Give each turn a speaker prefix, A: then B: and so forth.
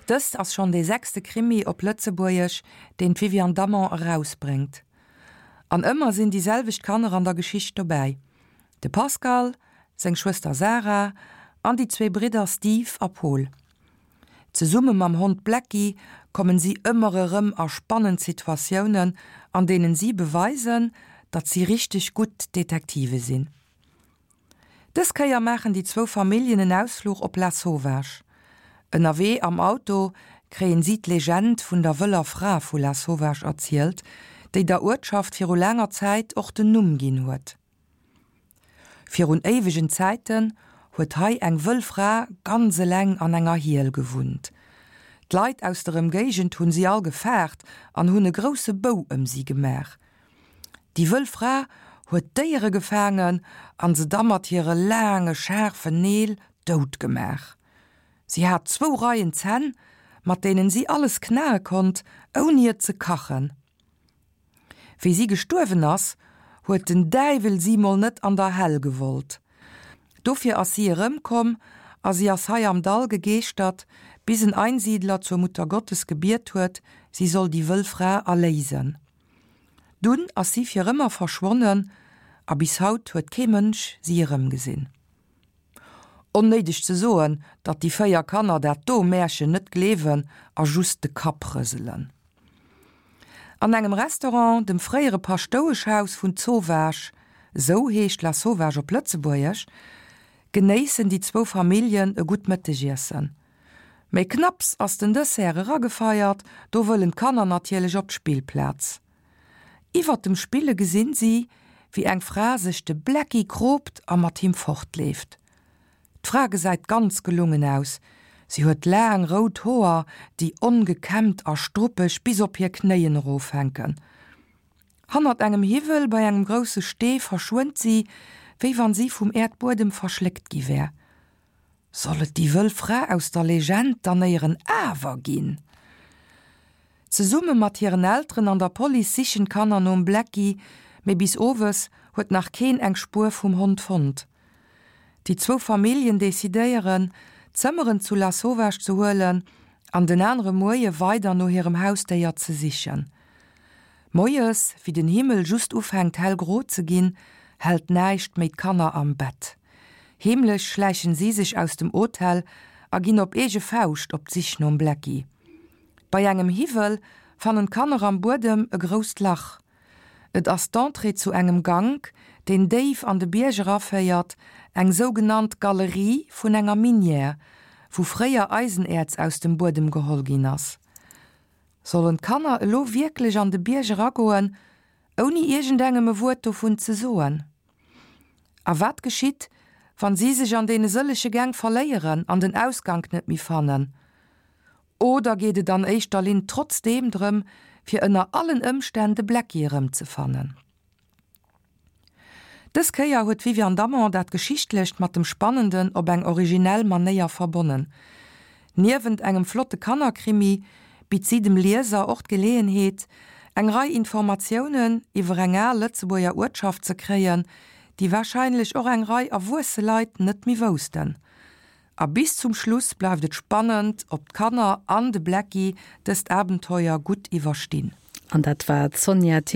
A: Dëst ass schonn dee sechste Krimi op Lëtzebuergesch, deen d'Viviane Damon erausbréngt. An ëmmer sinn déi selwecht Kanner an der Geschicht dobäi, de Pascal, seng Schwëster Sarah an déi zwee Bridder Steve a Pol. Zesumme mam Hond Blacky kommen si ëmmer erëm a spannend Situatiounen, an deenen si beweisen, datt si richteg gutt Detektive sinn. Dës Kéier maachen déi zwou Familljen en Ausfluch op Lasauvage. Ënnerwee am Auto kréien si d'Legend vun der wëller Fra vu Lasauvage erzielt, déi der Uertschaft viru laanger Zäit och den Numm ginn huet. Virun éiwegen Zäiten huet hei eng wëll Fra ganz eleng an enger Hiel gewunnt. D'Leit aus der Ëmgéigend hunn si all gefaart an hunn e grousse Bou ëm si gemaach. Déi wëll Fra huet Déiere gefaangen an se da mat hire laange schaarfen Neel dout gemaach. Si hat zwou Reien Zänn, mat deenen si alles knae konnt, ouni et ze kachen. Wéi si gestuerwen ass, huet den Däiwel si mol net an der Hell gewollt. Dofir ass si erëmkomm a si ass hei am Dall gegeeschtert, bis en Einsiedler zur Muttergottes gebiet huet, si soll déi wëll Fra erléisen. Dunn ass si fir ëmmer verschwonnen a bis haut huet kee Mënsch si erëmgesinn. Onnéideg ze soen, datt déi 4 Kanner dat do Märchen net gleewen a just de Kapp rëselen. An engem Restaurant, dem fréiere Paschtoueschhaus vun Zowaasch, esou heescht Lasauvage op Lëtzebuergesch, genéissen déi zwou Familljen e gutt Mëttegiessen. Méi knapps ass den Dessert eragefeiert, do wëllen d'Kanner natierlech op d'Spillplaz. Iwwert dem Spille gesinn si, wéi eng Fra sech de Blacky kroopt a mat him fortleeft. D'Fra gesäit ganz gelungen aus, si huet laang rout Hoer, déi ongekämmt a struppeg bis op hir Knéien erofhänken. Hannert engem Hiwwel bei engem grousse Stee verschwënnt si, wéi wann si vum Äerdbuedem verschléckt gi wär. Soll et déi wëll Fra aus der Legend dann éieren awer ginn? Zesumme mat hiren Elteren an der Police sichen d'Kanner nom Blacky, mee bis owes huet nach keen eng Spuer vum Hond fonnt. Déi zwou Familljen decidéieren, d'Zëmmeren zu Lasauvage ze huelen an den anere Moie weider no hirem Hausdéier ze sichen. Moies, wéi den Himmel just ufänkt hellgro ze ginn, hält näischt méi d'Kanner am Bett. Heemlech schläichen si sech aus dem Hotel a ginn op eege Fauscht op d'Sich nom Blacky. Bei engem Hiwwel fannen d'Kanner am Buedem e grousst Lach. Et ass d'Entrée zu engem Gank, deen déif an de Bierg eraféiert, eng sougenannt Galerie vun enger Minière, wou fréier Eisenäerz aus dem Buedem geholl ginn ass. Sollen d'Kanner elo wierklech an de Bierg eragoen, ouni iergendengem e Wuert dovun ze soen? A wat geschitt, wann si sech an deene sëllege Gäng verléieren an den Ausgank net méi fannen? Oder geet et an éischter Linn trotzdeem drëm, fir ënner allen Ëmstänn de Blacky erëmzefannen? Dës Kéier huet d'Viviane Damon dat Geschichtlecht mat dem Spannenden op eng originell Manéier verbonnen. Niewent engem flotte Kannerkrimi bitt si dem Lieser och d'Geleeënheet, eng Rei Informatiounen iwwer eng al Lëtzebuerger Uertschaft ze kréien, déi warscheinlech och eng Rei erwuesse Leit net méi woussten. A bis zum Schluss bleift et spannend, ob d'Kanner an de Blacky dëst Abenteuer gutt iwwerstinn.
B: An dat war d'Sonja.